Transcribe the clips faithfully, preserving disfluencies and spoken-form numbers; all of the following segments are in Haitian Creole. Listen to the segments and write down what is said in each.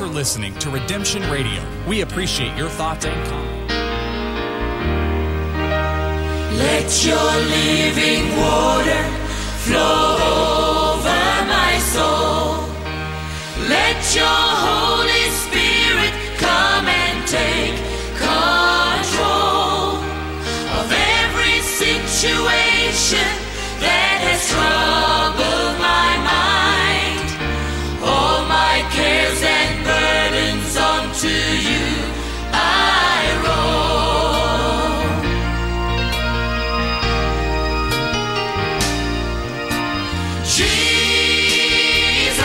You're listening to Redemption Radio. We appreciate your thoughts and comments. Let your living water flow over my soul. Let your Holy Spirit come and take control of every situation that has troubled my mind. All my cares and burdens unto you I roll. Jesus,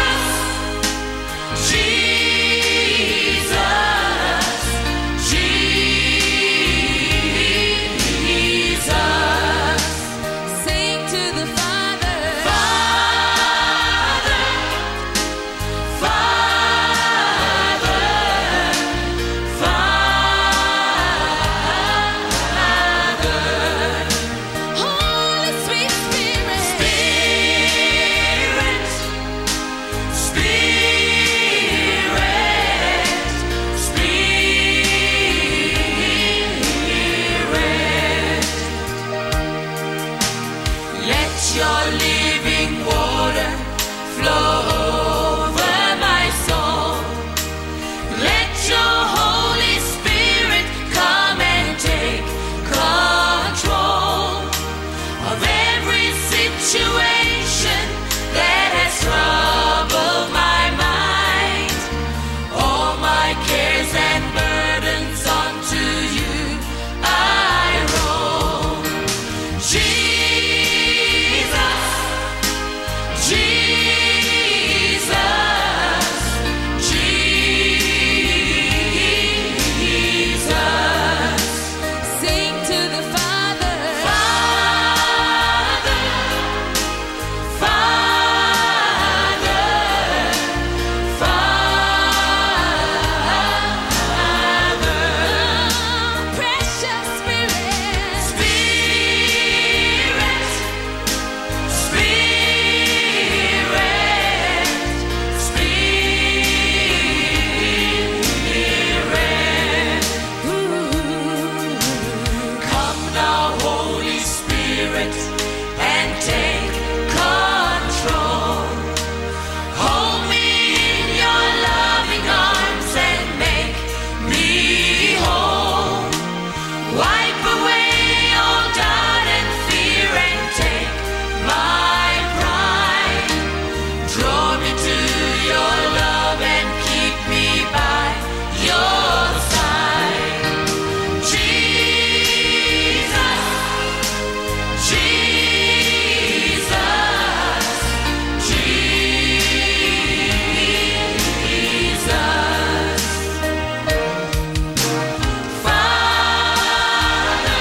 Jesus, Jesus. Sing to the Father. Father, Father, Father. Holy sweet Spirit. Spirit, Spirit, Spirit. Let your living water flow over my soul. Let your Holy Spirit come and take control of every situation that has troubled my mind. All my cares and burdens unto you I roll. Jesus, Jesus, Jesus. Sing to the Father. Father, Father, Father. Precious Spirit. Spirit, Spirit, Spirit. Ooh. Come now, Holy Spirit, and take control. Hold me in your loving arms and make me whole. Wipe away all doubt and fear and take my pride. Draw me to your love and keep me by your side. Jesus, Jesus, Jesus. Father,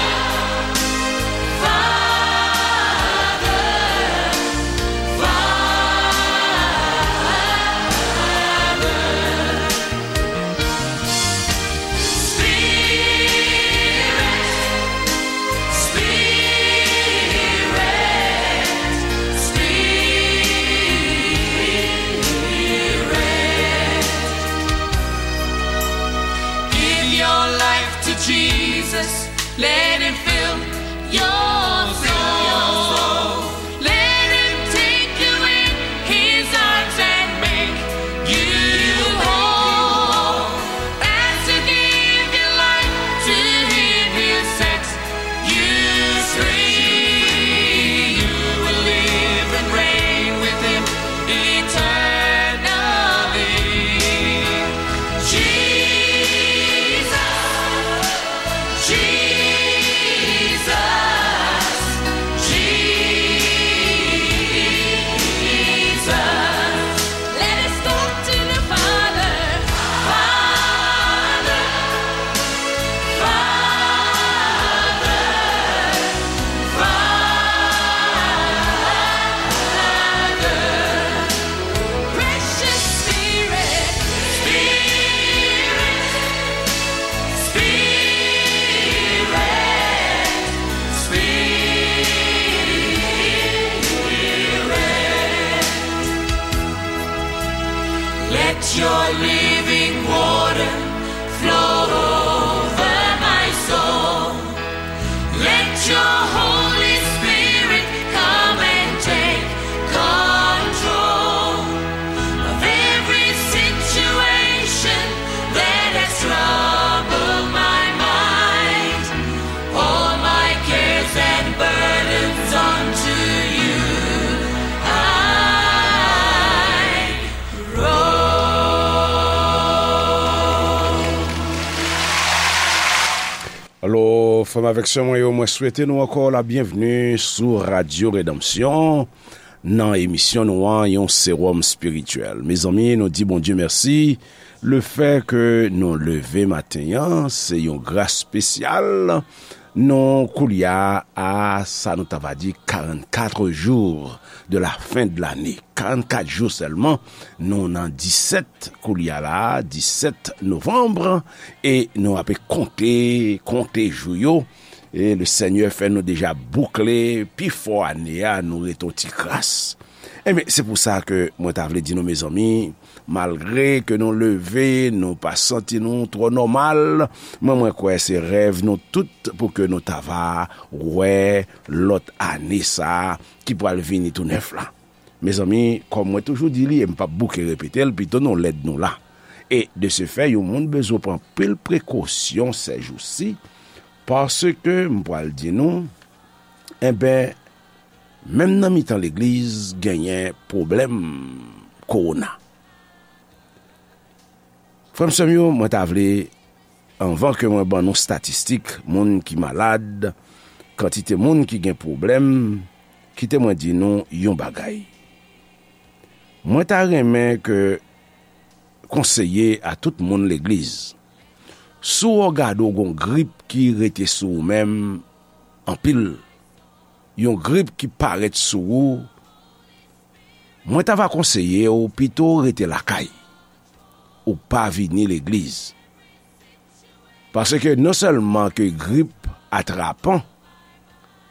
Father, Father. Spirit, Spirit, Spirit. Give your life to Jesus. Let him fill your soul. Let him take you in his arms and make you whole. As you give your life to him, he'll set you free. You will live and reign with him eternally. Jesus, Jesus. Frè m avèk sè mwen yo, mwen swete nou ankò la byenvni sou Radyo Redanmsyon nan emisyon nou an, yon sewòm espirityèl. Mezanmi, nou di Bondye mèsi. Lefè ke nou leve maten an, se yon gras espesyal. Nou koulye a, sa nou ta va di, quarante-quatre jours de la fin de l'année. Karannkat jou sèlman, nou nan disèt koulye a la, disèt novanm, e nou ape konte, konte jou yo. E le Senyè fè nou deja boukle pi fò ane a, nou rete yon ti kras. Ebyen, se pou sa ke mwen ta vle di nou, mezanmi, malgre ke nou leve, nou pa santi nou twò nòmal, mwen, mwen kwè se rèv nou tout pou ke nou ta va wè lòt ane sa a ki pral vini tou nèf la. Mezanmi, kòm mwen toujou di li, e m p ap bouke repete l, pito nou lèd nou la. E de se fè, yon moun bezwen pran anpil prekosyon sèjousi, paske m pral di nou, enben, menm nan mitan legliz, genyen pwoblèm kowona. Frè m, sè m yo, mwen ta vle, anvan ke mwen ban nou statistik moun ki malad, kantite moun ki gen pwoblèm, kite mwen di nou yon bagay. Mwen ta renmen ke konseye a tout moun legliz, si w gade w gon grip ki rete sou ou menm anpil, yon grip ki parèt sou ou, mwen ta va konseye w pito rete lakay, ou pa vini legliz. Paske non sèlman ke grip atrapan,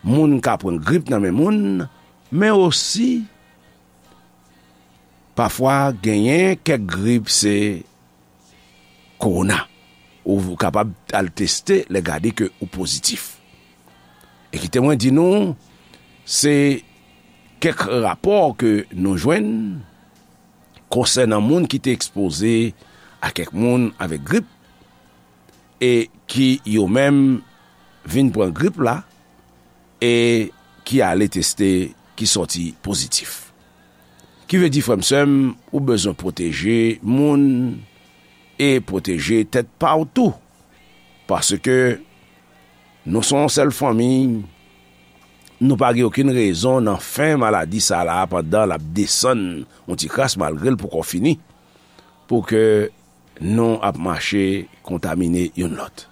moun ka pran grip nan men moun, men osi, pafwa genyen kèk grip se kowona. Ou kapab al teste, lè gade ke ou pozitif. E kite mwen di nou, se kèk rapò ke nou jwenn konsènan moun ki te ekspoze a kèk moun avèk grip, e ki yo menm vin pran grip la, e ki ale teste, ki sòti pozitif. Ki vle di, frè m, sè m, ou bezwen pwoteje moun e pwoteje tèt pa w tou. Paske nou se yon sèl fanmi, nou pa gen okenn rezon nan fen maladi sa la, pandan l ap desann yon ti kras, malgre l poko fini, pou ke nou ap mache kontamine youn lòt.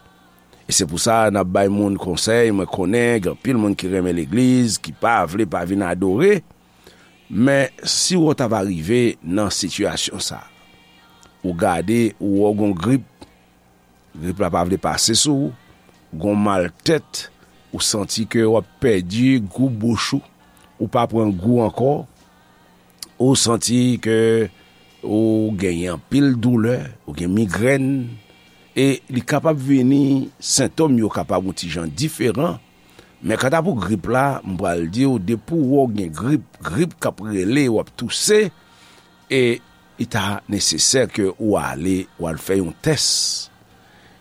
E se pou sa n ap bay moun konsèy, mwen konnen gen anpil moun ki renmen legliz, ki pa vle pa vin adore, men si w ta va rive nan sitiyasyon sa, ou gade, ou wè w gon grip, grip la pa vle pase sou ou, gon mal tèt, ou santi ke w ap pèdi gou bouch ou, ou pa pran gou ankò, ou santi ke ou genyen anpil doulè, ou gen migrèn, e li kapab vini, sentòm yo kapab yon ti jan diferan, men kanta pou grip la, m pral di w, depi w wè w gen grip, grip k ap rele, w ap touse, e li ta nesesè ke ou ale, ou al fè yon tès.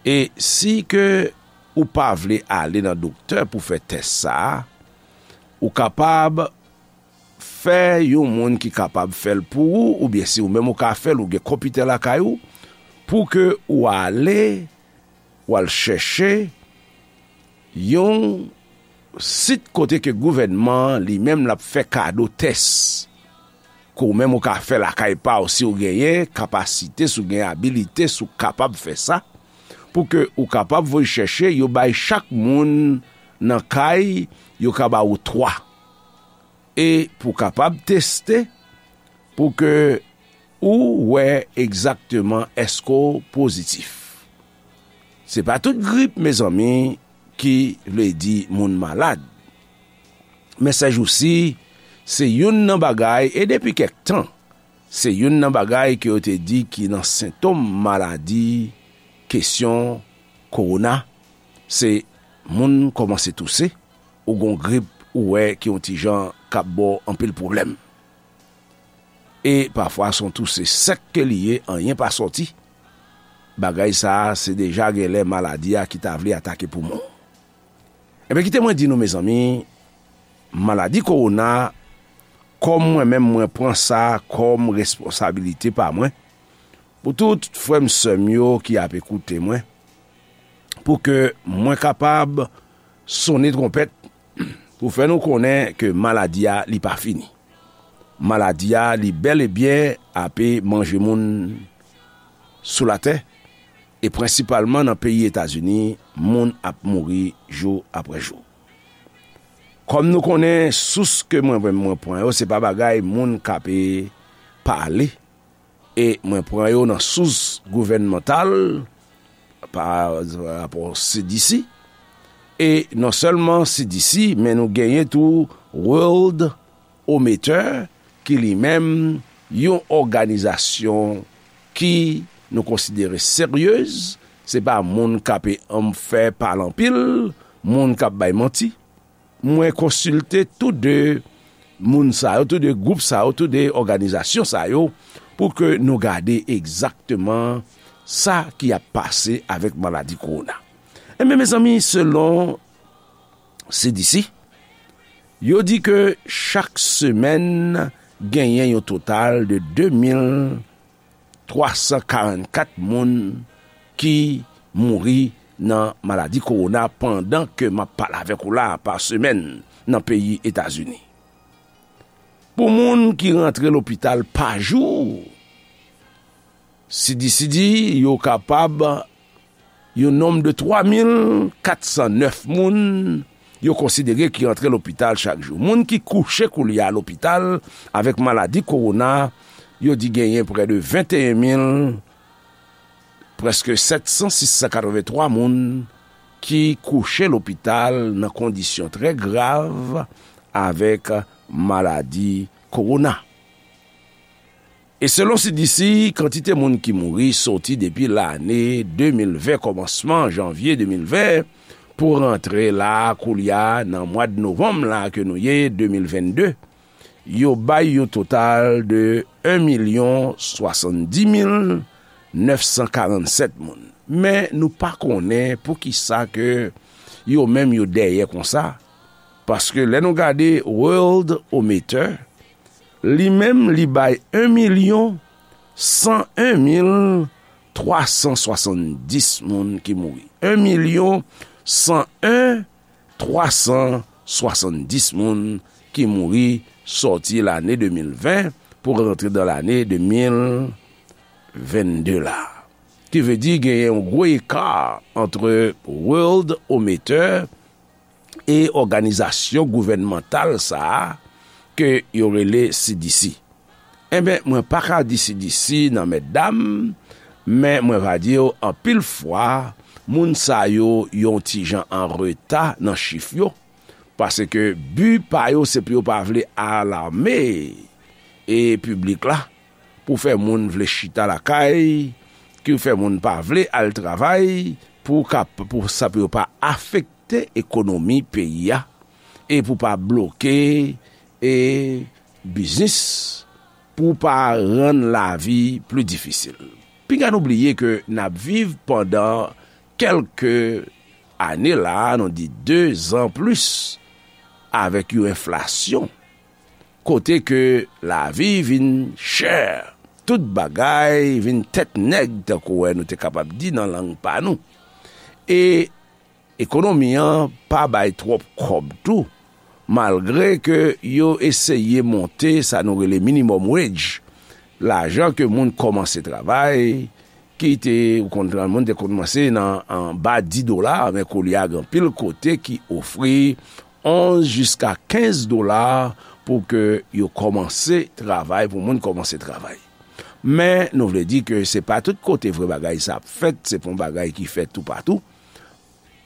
E si ke ou pa vle ale nan doktè pou fè tès sa a, ou kapab fè yon moun ki kapab fè l pou ou, oubyen si ou menm ou ka fè l, ou gen konpitè lakay ou, pou ke ou ale, ou al chèche yon sit kote ke gouvènman an li menm l ap fè kado tès, ke ou menm ou ka fè lakay pa w si w genyen kapasite, si w gen abilite, si w kapab fè sa, pou ke ou kapab voye chèche, yo bay chak moun nan kay, yo ka ba ou twa. E pou w kapab teste, pou ke ou wè egzakteman èske w pozitif. Se pa tout grip, mezanmi, ki vle di moun malad. Men sèjousi, se youn nan bagay, e depi kèk tan, se youn nan bagay ke yo te di ki nan sentòm maladi, kesyon kowona, se moun kòmanse touse, ou gon grip, ou wè ki yon ti jan k ap ba w anpil pwoblèm. E pafwa, se yon touse sèk ke li ye, anyen pa sòti. Bagay sa a, se deja genlè maladi a ki ta vle atake poumon. Ebyen, kite mwen di nou, mezanmi, maladi kowona, kòm mwen menm, mwen pran sa kòm responsabilite pa mwen, pou tout frè m, sè m yo ki ap ekoute mwen, pou ke mwen kapab sonnen twonpèt pou fè nou konnen ke maladi a li pa fini. Maladi a li bèl e byen ape manje moun sou latè, e prensipalman nan peyi Etazini, moun ap mouri jou apre jou. Kòm nou konnen, sous ke mwen, mwen, mwen pran yo, se pa bagay moun k ape pale, e mwen pran yo nan sous gouvènmantal, pa rapò C D C, e non sèlman C D C, men nou genyen tou World Ometer, ki li menm yon òganizasyon ki nou konsidere seryez, se pa moun k ape anm fè pale anpil, moun k ap bay manti. Mwen konsilte tou de moun sa yo, tou de gwoup sa yo, tou de òganizasyon sa yo, pou ke nou gade egzakteman sa ki ap pase avèk maladi kowona. Enben, mezanmi, selon C D C, yo di ke chak semèn genyen yon total de de mil twa san karannkat moun ki mouri nan maladi kowona pandan ke m ap pale avèk ou la pa semèn nan peyi Etazini. Pou moun ki rantre lopital pa jou, C D C di yo kapab yon nonm de twa mil kat san nèf moun yo konsidere ki antre lopital chak jou. Moun ki kouche koulye a lopital avèk maladi kowona, yo di genyen prè de venteyen mil, prèske sèt san, sis san katrevenntwa moun ki kouche lopital nan kondisyon trè grav avèk maladi kowona. E selon C D C, kantite moun ki mouri soti depi lane de mil ven, kòmansman janvye de mil ven, pou rantre la, koulye a, nan mwa de novanm la ke nou ye, de mil vennde, yo bay yon total de en milyon swasanndis mil nèf san karannsèt moun. Men nou pa konnen poukisa ke yo menm yo dèyè konsa, paske lè nou gade World Ometer, li menm, li bay en milyon san en mil twa san swasanndis moun ki mouri. En milyon san en twa san swasanndis moun ki mouri sòti lane de mil ven pou rantre dan lane de mil vennde la. Ki vle di genyen yon gwo eka antre World Ometer e òganizasyon gouvènmantal sa a ke yo rele C D C. Enben, mwen pa ka di C D C nan mètdam, men mwen va di w anpil fwa, moun sa yo yon ti jan an reta nan chif yo, paske bi pa yo se pou yo pa vle alame e piblik la, pou fè moun vle chita lakay, ki fè moun pa vle al travay, pou ka, pou sa pou yo pa afekte ekonomi peyi a, e pou pa bloke e biznis, pou pa rann lavi pli difisil. Piga nou bliye ke n ap viv pandan kèlke ane la, nou di dezan plis, avèk yon enflasyon, kote ke lavi vin chè, tout bagay vin tèt nèg, tankou wè nou te kapab di nan lang pa nou. E ekonomi an pa bay twòp kòb tou, malgre ke yo eseye monte sa nou rele minimum wage, lajan ke moun kòmanse travay, ki te, ou konn, moun te kòmanse nan anba dis dola, men koulye a gen anpil kote ki ofri onz jiska kenz dola pou ke yo kòmanse travay, pou moun kòmanse travay. Men nou vle di ke se pa tout kote vre bagay sa ap fèt, se pa yon bagay ki fèt toupatou,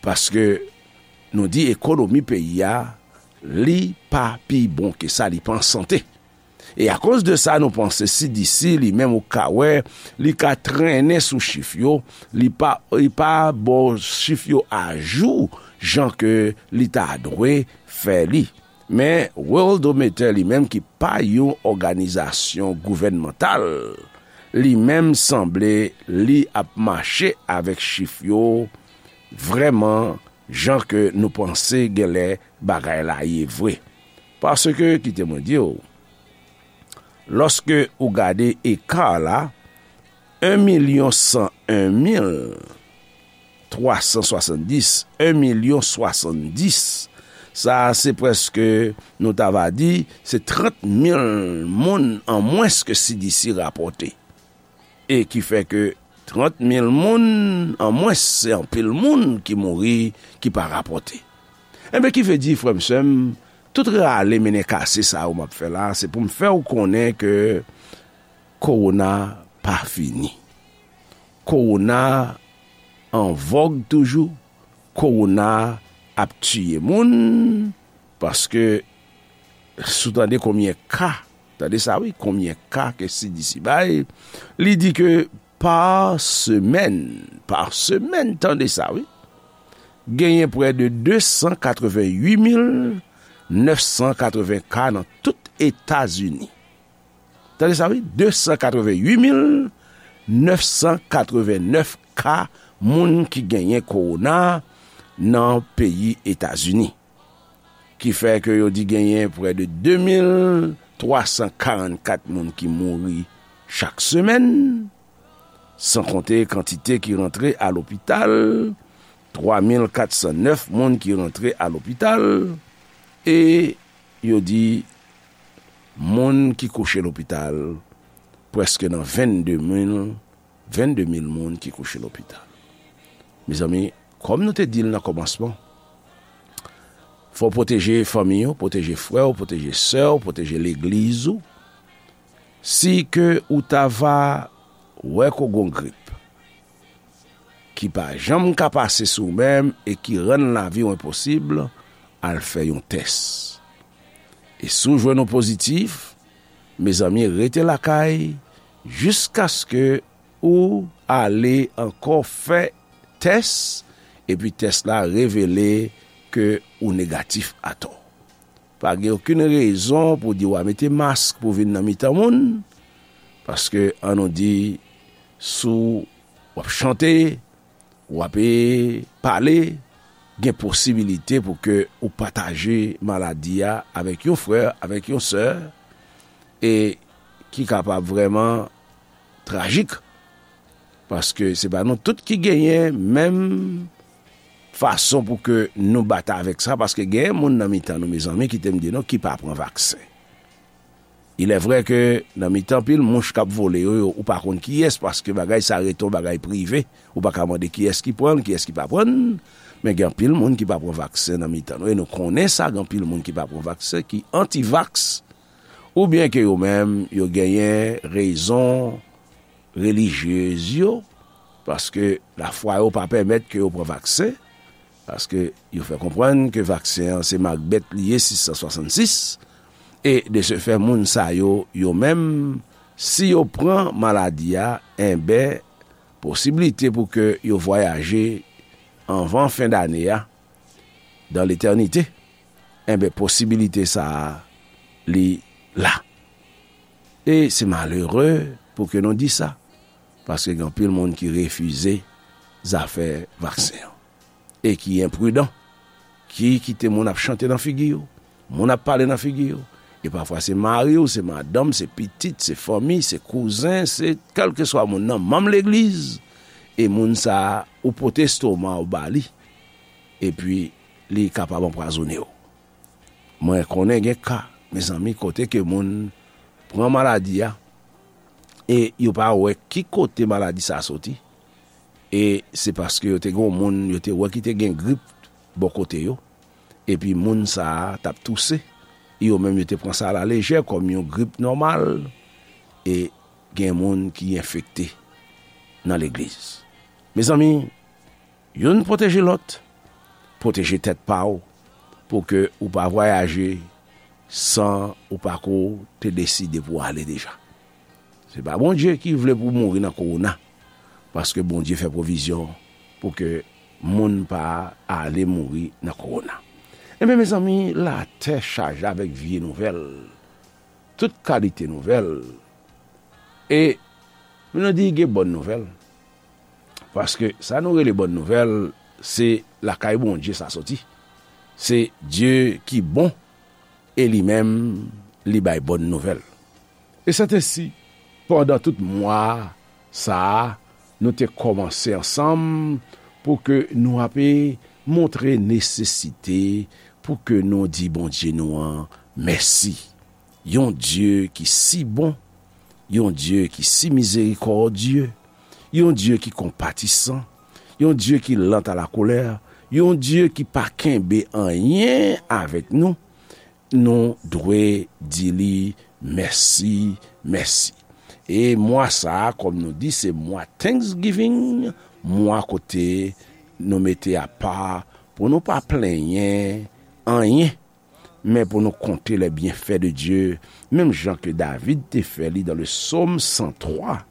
paske nou di ekonomi peyi a, li pa pi bon ke sa, li pa an sante. E akoz de sa, nou panse C D C li menm ou ka wè, li ka trennen sou chif yo, li pa, li pa ba w chif yo ajou jan ke li ta dwe fè li. Men Worldometer li menm ki pa yon òganizasyon gouvènmantal, li menm sanble li ap mache avèk chif yo vrèman jan ke nou panse genlè bagay la ye vre. Paske, kite mwen di w, lòske ou gade eka la, en milyon san en mil twa san swasanndis, en milyon swasanndis. Sa a se prèske, nou ta va di, se trant mil moun an mwens ke C D C rapòte. E ki fè ke trant mil moun an mwens, se anpil moun ki mouri, ki pa rapòte. Enben, ki vle di, frè m, sè m, tout rale mennen kase sa yo m ap fè la, se pou m fè w konnen ke kowona pa fini. Kowona an vòg toujou, kowona ap tiye moun, paske si w tande konbyen ka, tande sa wi, konbyen ka ke C D C bay, li di ke pa semèn, pa semèn, tande sa wi, genyen prè de de san katreven uit mil nèf san katreven ka nan tout Etazini. Tande sa wi, de san katreven uit mil nèf san katreven nèf ka moun ki genyen kowona nan peyi Etazini. Ki fè ke yo di genyen prè de de mil twa san karannkat moun ki mouri chak semèn, san konte kantite ki rantre a lopital, twa mil kat san nèf moun ki rantre a lopital, e yo di moun ki kouche lopital, prèske nan vennde mil, vennde mil moun ki kouche lopital. Mezanmi, kòm nou te di l nan kòmansman, fò w pwoteje fanmi w, pwoteje frè w, pwoteje sè w, pwoteje legliz ou. Si ke ou ta va wè ke w gon grip ki pa janm ka pase sou ou menm e ki rann lavi w enposib, al fè yon tès. E si w jwenn ou pozitif, mezanmi, rete lakay jiskaske ou ale ankò fè tès, epi tès la revele ke ou negatif atò. Pa gen okenn rezon pou di w a mete mask pou vin nan mitan moun, paske ann nou di, si w ap chante, w ap, e, pale, gen posibilite pou ke ou pataje maladi a avèk yon frè, avèk yon sè, e ki kapab vrèman trajik, paske se pa nou tout ki genyen menm fason pou ke nou batay avèk sa, paske genyen moun nan mitan nou, mezanmi, ki te m di nou, ki pa pran vaksen. Il est vrai ke nan mitan pil mouch k ap vole yo, yo, ou pa konn kiyès, paske bagay sa rete yon bagay prive, ou pa ka mande kiyès ki pran l, kiyès ki pa pran l, men gen anpil moun ki pa pran vaksen nan mitan nou, e nou konnen sa, gen anpil moun ki pa pran vaksen, ki anti-vax, oubyen ke yo menm, yo genyen rezon relijyez yo, paske lafwa yo pa pèmèt ke yo pran vaksen, paske yo fè konprann ke vaksen an se mak bèt li ye, sis san swasann sis, e de se fè, moun sa yo, yo menm, si yo pran maladi a, enben, posiblite pou ke yo vwayaje anvan fen dane a, dan letènite, enben, posibilite sa a, li la. E se malere pou ke nou di sa, paske gen anpil moun ki refize zafè vaksen an, e ki enpridan, ki kite moun ap chante nan figi yo, moun ap pale nan figi yo, e pafwa se mari w, se madanm, se pitit, se fanmi, se kouzen, se kèlkeswa moun nan, manm legliz, e moun sa a, ou pote estoma w ba li, epi li kapab anpwazonnen w. Mwen konnen gen ka, mezanmi, kote ke moun pran maladi a, e yo pa wè ki kote maladi sa a soti. E se paske yo te gen yon moun, yo te wè ki te gen grip bò kote yo, epi moun sa a t ap touse. Yo menm, yo te pran sa alalejè, kòm yon grip nòmal, e gen moun ki enfekte nan legliz. Mezanmi, youn pwoteje lòt, pwoteje tèt pa w, pou ke ou pa vwayaje san ou pa ko te deside pou w ale deja. Se pa Bondye ki vle pou w mouri nan kowona, paske Bondye fè pwovizyon pou ke moun pa ale mouri nan kowona. Enben, mezanmi, latè chaje avèk vye nouvèl, tout kalite nouvèl. E nou di gen bòn nouvèl, paske sa nou rele bòn nouvèl, se lakay Bondye sa soti. Se Dye ki bon, e li menm, li bay bòn nouvèl. E sètensi, pandan tout mwa sa a, nou te kòmanse ansanm pou ke nou ape montre nesesite pou ke nou di Bondye nou an mèsi. Yon Dye ki si bon, yon Dye ki si mizerikòdye, yon Dye ki konpatisan, yon Dye ki lant a la kolè, yon Dye ki pa kenbe anyen avèk nou, nou dwe di li mèsi, mèsi. E mwa sa a, kòm nou di, se mwa Thanksgiving, mwa kote nou mete apa pou nou pa plenyen anyen, men pou nou konte les bienfaits de Dieu, menm jan ke David te fè li dans le psaume cent trois.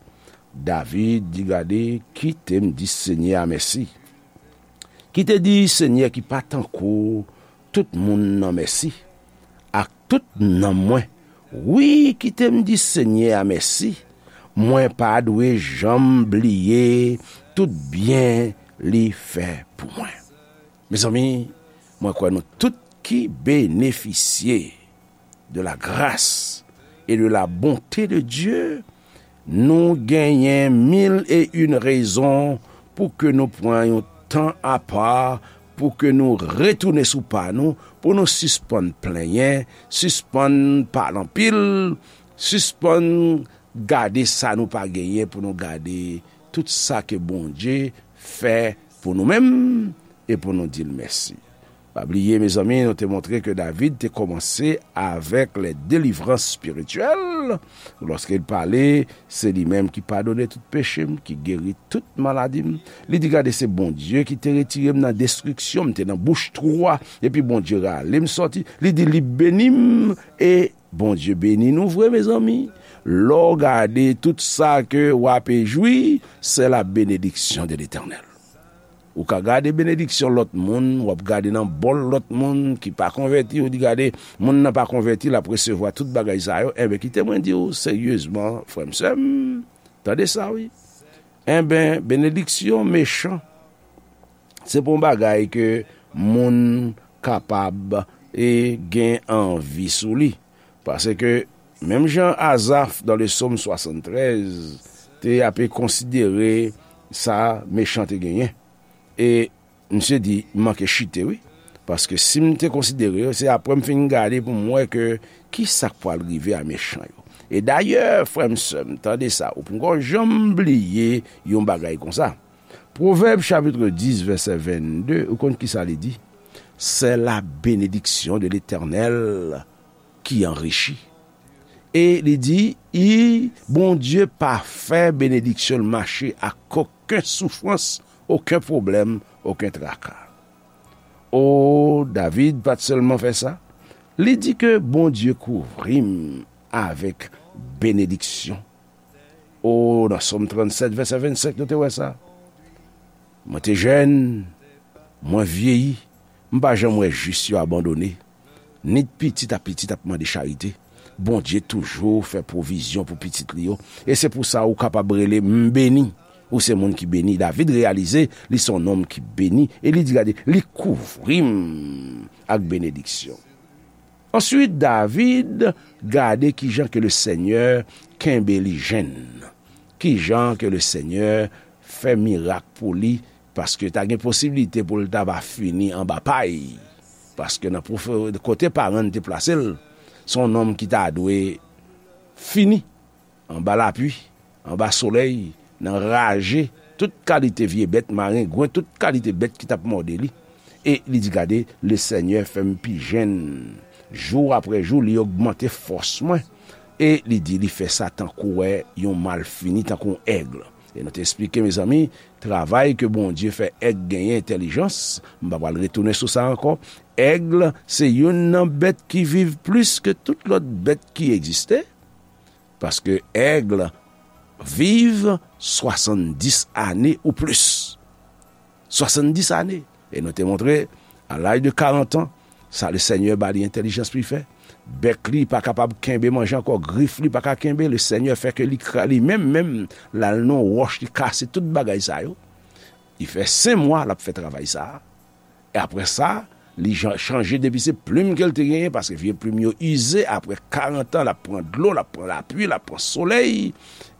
David di, gade, kite m di Senyè a mèsi. Kite di Senyè ki pa tankou tout moun nan mèsi, ak tout nanm mwen. Wi, kite m di Senyè a mèsi. Mwen pa dwe janm bliye tout byen li fè pou mwen. Mezanmi, mwen kwè nou tout ki benefisye de la grâce et de la bonté de Dieu, nou genyen mil e yon rezon pou ke nou pran yon tan apa, pou ke nou retounen sou pa nou, pou nou sispann plenyen, sispann pale anpil, sispann gade sa nou pa genyen, pou nou gade tout sa ke Bondye fè pou nou menm e pou nou di l mèsi. Pa bliye, mezanmi, nou te montre ke David te kòmanse avèk les délivrances spirituelles. Lorsqu'il parlait, se li menm ki padone tout peche m, ki geri tout maladi m. Li di, gade, se Bondye ki te retire m nan destriksyon, m te nan bouch twou a, epi Bondye rale m sòti. Li di, li beni m, e Bondye beni nou vre, mezanmi. Lè w gade tout sa ke w ape jwi, c'est la bénédiction de l'Éternel. Ou ka gade benediksyon lòt moun, w ap gade nan bòl lòt moun ki pa konvèti, ou di, gade, moun nan pa konvèti, l ap resevwa tout bagay sa yo. Enben, kite mwen di w seryezman, frè m, sè m, tande sa, wi. Enben, benediksyon mechan, se pa yon bagay ke moun kapab e gen anvi sou li. Paske, menm jan Azaf, dans le psaume soixante-treize, te ape konsidere sa mechan te genyen. E misye di, m manke chite, wi. Paske si m te konsidere yo, se apre m fin gade pou m wè ke ki sa k pral rive a mechan yo. E dayè, frè m, sè m, tande sa, ou poko janm bliye yon bagay konsa. Pwovèb chapit dis, vèsè vennde, ou konn ki sa li di? C'est la bénédiction de l'Éternel qui enrichit. E li di, i, Bondye pa fè benediksyon l mache ak okenn soufrans, okenn pwoblèm, okenn traka. O, David pa t sèlman fè sa, li di ke Bondye kouvri m avèk benediksyon. O, nan Sòm trannsèt, vèsè vennsenk, nou te wè sa. Mwen te jèn, mwen vyeyi, m pa janm wè jis yo abandone. Ni pitit a pitit ap mande charite. Bondye toujou fè pwovizyon pou pitit li yo. E se pou sa ou kapab rele m beni. Ou se moun ki beni. David reyalize li se yon nonm ki beni. E li di, gade, li kouvri m ak benediksyon. Answit, David gade kijan ke Lesenyè kenbe li jenn. Kijan ke Lesenyè fè mirak pou li, paske ta gen posiblite pou l ta va fini anba pay. Paske nan pwofe-, kote paran l te plase l, se yon nonm ki ta dwe fini anba lapli, anba solèy, nan raje, tout kalite vye bèt, marengwen, tout kalite bèt ki t ap mòde li. E li di, gade, Lesenyè fè m pi jenn. Jou apre jou, li ogmante fòs mwen. E li di, li fè sa tankou wè yon malfini, tankou yon èg. E nou te eksplike, mezanmi, travay ke Bondye fè èg genyen entèlijans, m pa pral retounen sou sa ankò. Èg, se youn nan bèt ki viv plis ke tout lòt bèt ki egziste. Paske èg viv swasanndis ane ou plis. Swasanndis ane. E nou te montre, a laj de karant an, sa Lesenyè ba li entèlijans pou li fè. Bèk li pa kapab kenbe manje ankò, grif li pa ka kenbe, Lesenyè fè ke li kra-, li menm, menm, l al nan wòch, li kase tout bagay sa yo. Li fè senk mwa, l ap fè travay sa a. E apre sa, li jan-, chanje depi se plim ke l te genyen, paske vye plim yo ize, apre karant an, l ap pran dlo, l ap pran lapli, l ap pran solèy,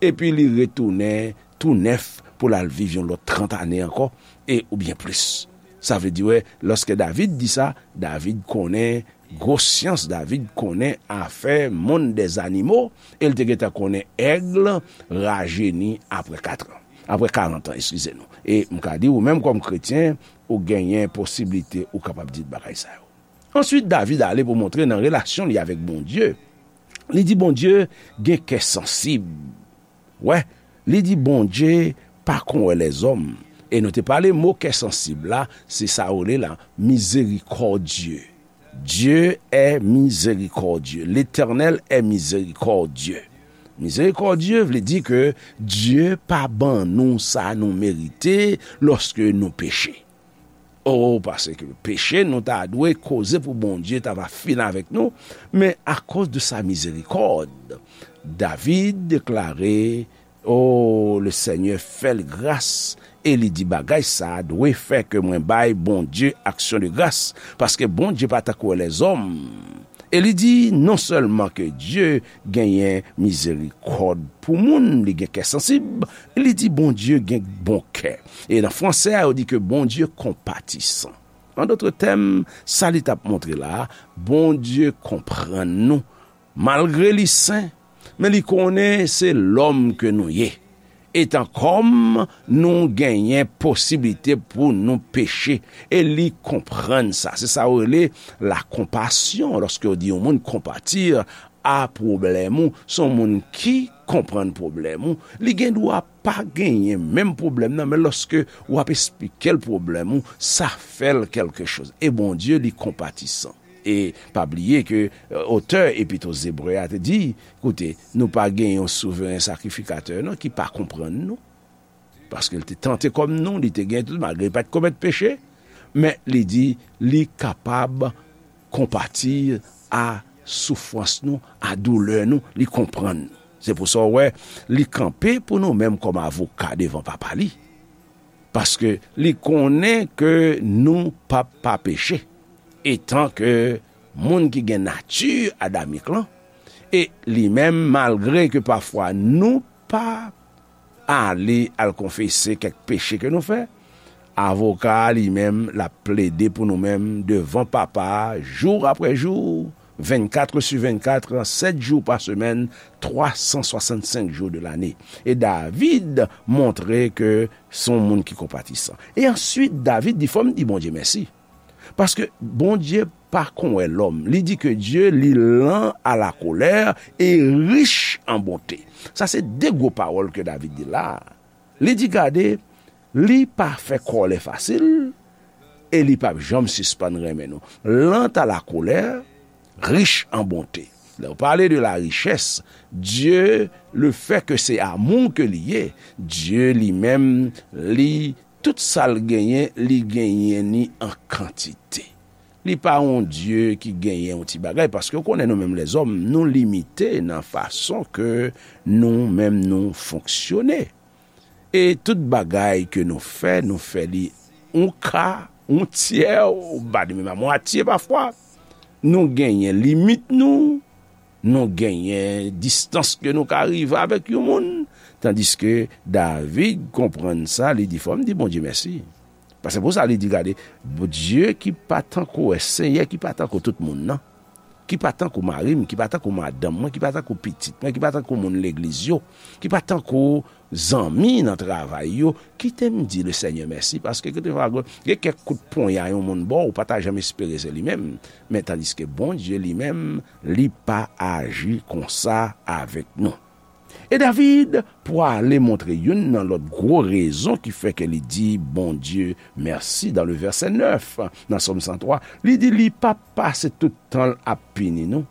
epi li retounen tou nèf pou l al viv yon lòt trant ane ankò, e oubyen plis. Sa vle di, wè, lòske David di sa, David konnen gwo syans, David konnen afè monde des animaux, e l te gentan konnen èg rajeni apre kat an. Apre karant an, eskize nou. E m ka di, ou menm kòm kretyen, ou genyen posiblite ou kapab di bagay sa yo. Answit, David ale pou montre nan relasyon li avèk Bondye. Li di Bondye gen kè sansib. Wè, li di Bondye pa kon wè lèzòm. E nou te pale mo kè sansib la, se sa yo rele la, miséricordieux. Dieu est miséricordieux. L'Éternel est miséricordieux. Miséricordieux vle di ke Dye pa ban nou sa nou merite lòske nou peche. Oh, paske peche nou ta dwe koze pou Bondye ta va fini avèk nou, men akoz de sa mizerikòd, David deklare, oh, le Seigneur fè l gras, e li di bagay sa dwe fè ke mwen bay Bondye aksyon de gras, paske Bondye pa tankou lèzòm. E li di non sèlman ke Dye genyen mizerikòd pou moun, li gen kè sansib, li di Bondye gen bon kè. E nan fransè a, yo di ke Bondye konpatisan. An dòt tèm, sa li t ap montre la, Bondye konprann nou. Malgre li sen, men li konnen se lòm ke nou ye. Etan kòm nou genyen posiblite pou nou peche, e li konprann sa. Se sa yo rele lakonpasyon, lòske yo di yon moun konpati a pwoblèm ou, se yon moun ki konprann pwoblèm ou, li gen dwa pa genyen menm pwoblèm nan, men lòske w ap esplike l pwoblèm ou, sa fè l kèlke choz. E Bondye, li konpatisan. E pa bliye ke, e, otè Epit o Zebre a te di, koute, nou pa gen yon souveren sakrifikatè non ki pa konprann nou. Paske l te tante kòm nou, li te gen tout, malgre li pa t komèt peche, men li di li kapab konpati a soufrans nou, a doulè nou, li konprann nou. Se pou sa w wè, li kanpe pou nou menm kòm avoka devan Papa li. Paske li konnen ke nou p ap pa peche, etan ke moun ki gen nati adamik lan, e li menm, malgre ke pafwa nou pa ale al konfese kèk peche ke nou fè, avoka a li menm, l ap plede pou nou menm devan Papa a, jou apre jou, vennkat sou vennkat, sèt jou pa semèn, twa san swasannsenk jou de lane. E David montre ke se yon moun ki konpatisan. E answit, David di, fò m di Bondye mèsi. Paske Bondye pa kon wè lòm. Li di ke Dye, li lan a la kolè e rich an bonte. Sa se de gwo pawòl ke David di la. Li di, gade, li pa fè kòlè fasil, e li p ap janm sispann renmen nou. Lan a la kolè, rich an bonte. Lè w pale de la richès, Dye, le fè ke se amou ke li ye, Dye li menm, li, tout sa l genyen, li genyen ni an kantite. Li pa yon Dye ki genyen yon ti bagay, paske w konnen nou menm lèzòm, nou limite nan fason ke nou menm nou fonksyone. E tout bagay ke nou fè, nou fè li yon ka, yon tyè, ou pa di menm a mwatye pafwa. Nou genyen limit nou, nou genyen distans ke nou ka rive avèk yon moun. Tandiske David konprann sa, li di, fò m di Bondye mèsi. Paske pou sa, li di, gade, Bondye ki pa tankou, Senyè ki pa tankou tout moun nan, ki pa tankou mari m, ki pa tankou madanm mwen, ki pa tankou pitit mwen, ki pa tankou moun legliz yo, ki pa tankou zanmi nan travay yo, kite m di Lesenyè mèsi, paske kèlkefwa gen kèk kout ponya yon moun ba w, ou pa ta janm espere se li menm. Men tandiske Bondye li menm, li pa aji konsa avèk nou. E David pwale montre youn nan lòt gwo rezon ki fè ke li di Bondye mèsi dan le vèsè nèf nan Sòm san twa. Li di li pa pase tout tan l ap pini nou.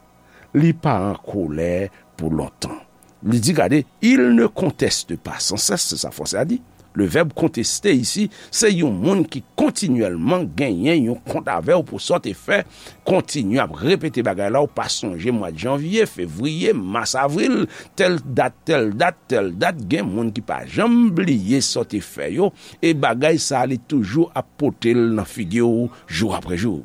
Li pa an kolè pou lontan. Li di, gade, il ne conteste pas sans cesse, se sa fransè a di. Le vèb contester isi, se yon moun ki kontinyèlman genyen yon kont avè w pou sa w te fè, kontinye ap repete bagay la, ou pa sonje mwa janvye, fevriye, mas, avril, tèl dat, tèl dat, tèl dat, gen moun ki pa janm bliye sa w te fè yo, e bagay sa a, li toujou ap pote l nan figi w jou apre jou.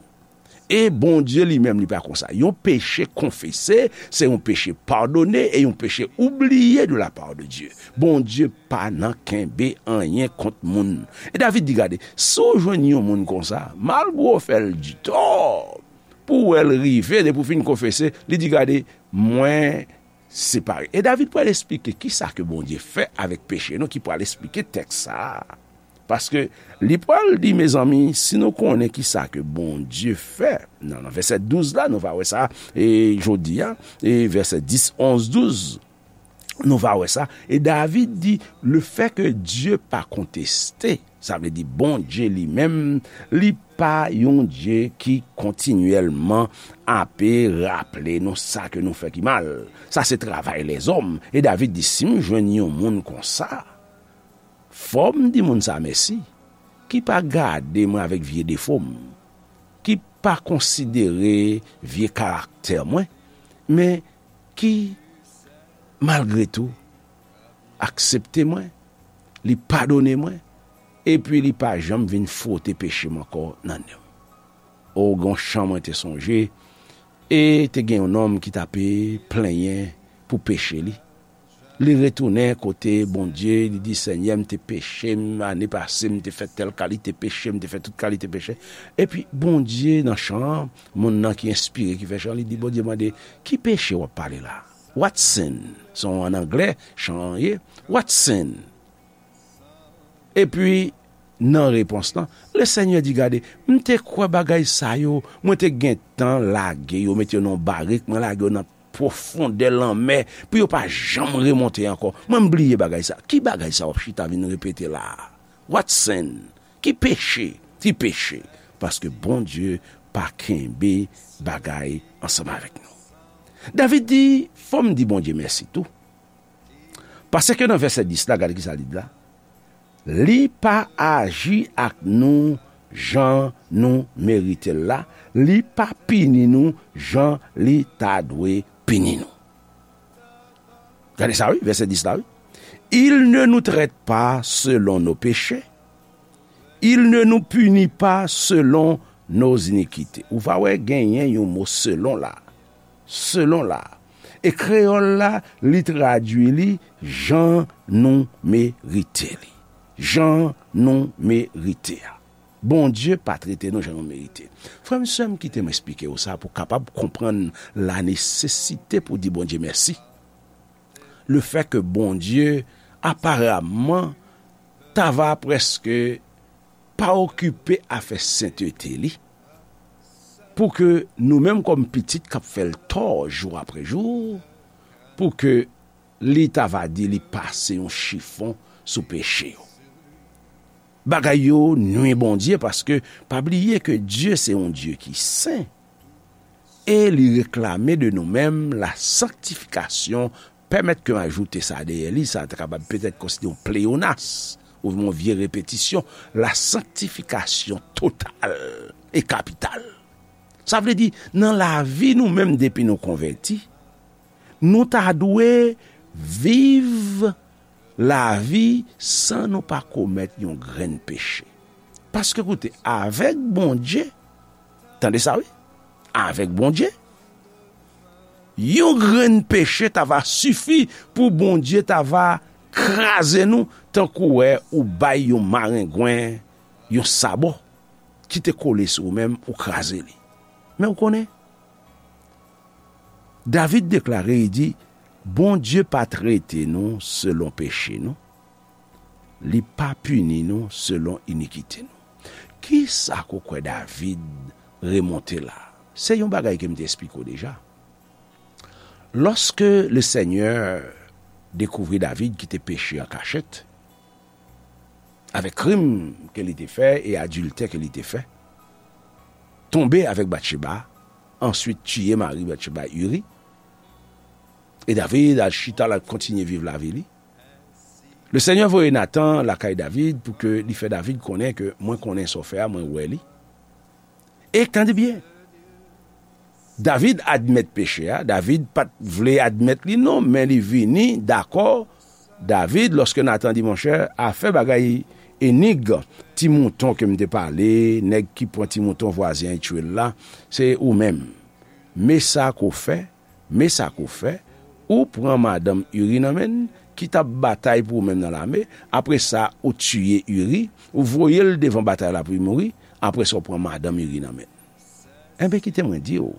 E Bondye li menm, li pa konsa. Yon peche konfese, se yon peche padone, e yon peche oubliye de la part de Dieu. Bondye pa nan kenbe anyen kont moun. E David di, gade, si w jwenn yon moun konsa, malgre w fè l di tò, pou w wè l rive, depi w fin konfese, li di, gade, mwen separe. E David pral esplike kisa ke Bondye fè avèk peche nou, ki pral esplike tèks sa a. Paske li pral di, mezanmi, si nou konnen kisa ke Bondye fè, nan, nan vèsè douz la, nou va wè sa, e jodi a, e vèsè dis, onz, douz, nou va wè sa. E David di, le fè ke Dye pa konteste, sa vle di Bondye li menm, li pa yon Dye ki kontinyèlman ape raple nou sa ke nou fè ki mal. Sa se travay lèzòm. E David di, si m jwenn yon moun konsa, fò m di moun sa mèsi, ki pa gade mwen avèk vye defo m, ki pa konsidere vye karaktè mwen, men ki, malgre tou, aksepte mwen, li padone mwen, epi li pa janm vin fwote peche m ankò nan nen m. O, gon chan mwen te sonje, e te gen yon nonm ki t ape plenyen pou peche li. Li retounen kote Bondye, li di, Senyè, m te peche, m, ane pase, m te fè tèl kalite peche, m te fè tout kalite peche. Epi Bondye, nan chan an, moun nan ki enspire, ki fè chan, li di, Bondye mande, ki peche w ap pale la? What sin? Se an anglè, chan an ye. What sin? Epi, nan repons lan, Lesenyè di, gade, m te kwè bagay sa yo, mwen te gentan lage yo, mete yo nan yon barik, mwen lage yo nan pwofondè lanmè, pou yo pa janm remonte ankò. Mwen, m bliye bagay sa. Ki bagay sa w ap chita vin repete la a? What sin? Ki peche? Ki peche? Paske Bondye pa kenbe bagay ansanm avèk nou. David di, fò m di Bondye mèsi tou. Paske nan vèsè dis la, gade kisa li di la. Li pa aji ak nou jan nou merite l la, li pa pini nou jan li ta dwe pini nou. Gade sa, wi, vèsè dis la, wi. Il ne nous traite pas selon nos péchés, il ne nous punit pas selon nos iniquités. Ou va wè genyen yon mo selon la. Selon la. E kreyòl la, li tradui li jan nou merite li. Jan nou merite a. Bondye pa trete nou jan nou merite. Frè m, sè m, kite m eksplike w sa pou w kapab konprann la nesesite pou w di Bondye mèsi. Le fè ke Bondye, aparamman, ta va prèske pa okipe afè sentete li, pou ke nou menm kòm pitit k ap fè l tò jou apre jou, pou ke li ta va di li pase yon chifon sou peche yo. Bagay yo nwi Bondye, paske pa bliye ke Dye se yon Dye ki sen. E li reklame de nou menm la sanctification. Pèmèt ke m ajoute sa dèyè li, sa ta kapab petèt konsidere yon pleyonas, oubyen yon vye repetisyon, la sanctification totale et capitale. Sa vle di, nan lavi nou menm depi nou konvèti, nou ta dwe viv lavi san nou pa komèt yon grenn peche. Paske koute, avèk Bondye, tande sa wi, avèk Bondye, yon grenn peche ta va sifi pou Bondye ta va kraze nou tankou wè ou bay yon marengwen yon sabò ki te kole sou ou menm, ou kraze li. Men ou konnen, David deklare, li di, Bondye pa trete nou selon peche nou, li pa pini nou selon inikite nou. Kisa ke w kwè David remonte la? Se yon bagay ke m te eksplike w deja. Lòske Lesenyè dekouvri David ki te peche an kachèt, avèk krim ke li te fè e adiltè ke li te fè, tonbe avèk Batcheba, answit tiye mari Batcheba, Iri, e David al chita, l al kontinye viv lavi li. Lesenyè voye Natan lakay David pou ke li fè David konnen ke mwen konnen sa w fè a, mwen wè li. E tande byen, David admèt peche a, David pa t vle admèt li non, men li vini dakò. David, lòske Natan di, monchè, afè bagay Enig, ti mouton ke m te pale, nèg ki pran ti mouton vwazen an, li tchwe l la, se ou menm. Men sa ke w fè, men sa ke w fè, ou pran madanm Iri nan men l, ki t ap batay pou ou menm nan lame, apre sa, ou tiye Iri, ou voye l devan batay la pou li mouri, apre sa, ou pran madanm Iri nan men l. Enben, kite mwen di w,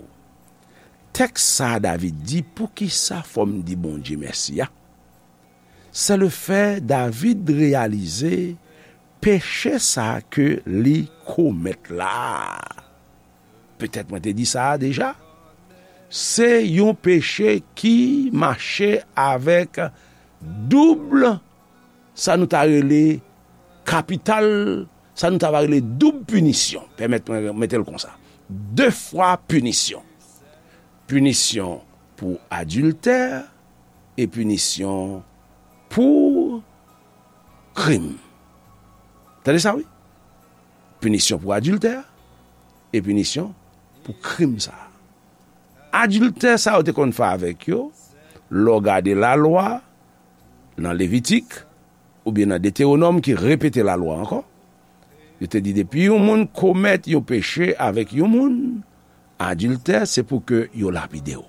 tèks sa a David di, poukisa fò m di Bondye mèsi a? Se le fè David reyalize peche sa ke li komèt la. Petèt mwen te di sa a deja. Se yon peche ki mache avèk doub, sa nou ta rele kapital, sa nou ta va rele doub pinisyon. Pèmèt mwen mete l konsa. De fwa pinisyon. Pinisyon pou adiltè e pinisyon pou krim. Tande sa, wi. Pinisyon pou adiltè e pinisyon pou krim sa a. Adiltè sa yo te konn fè avèk yo, lè w gade lalwa nan Levitik oubyen nan Detewonòm ki repete lalwa ankò, yo te di depi yon moun komèt yon peche avèk yon moun, adiltè, se pou ke yo lapide w.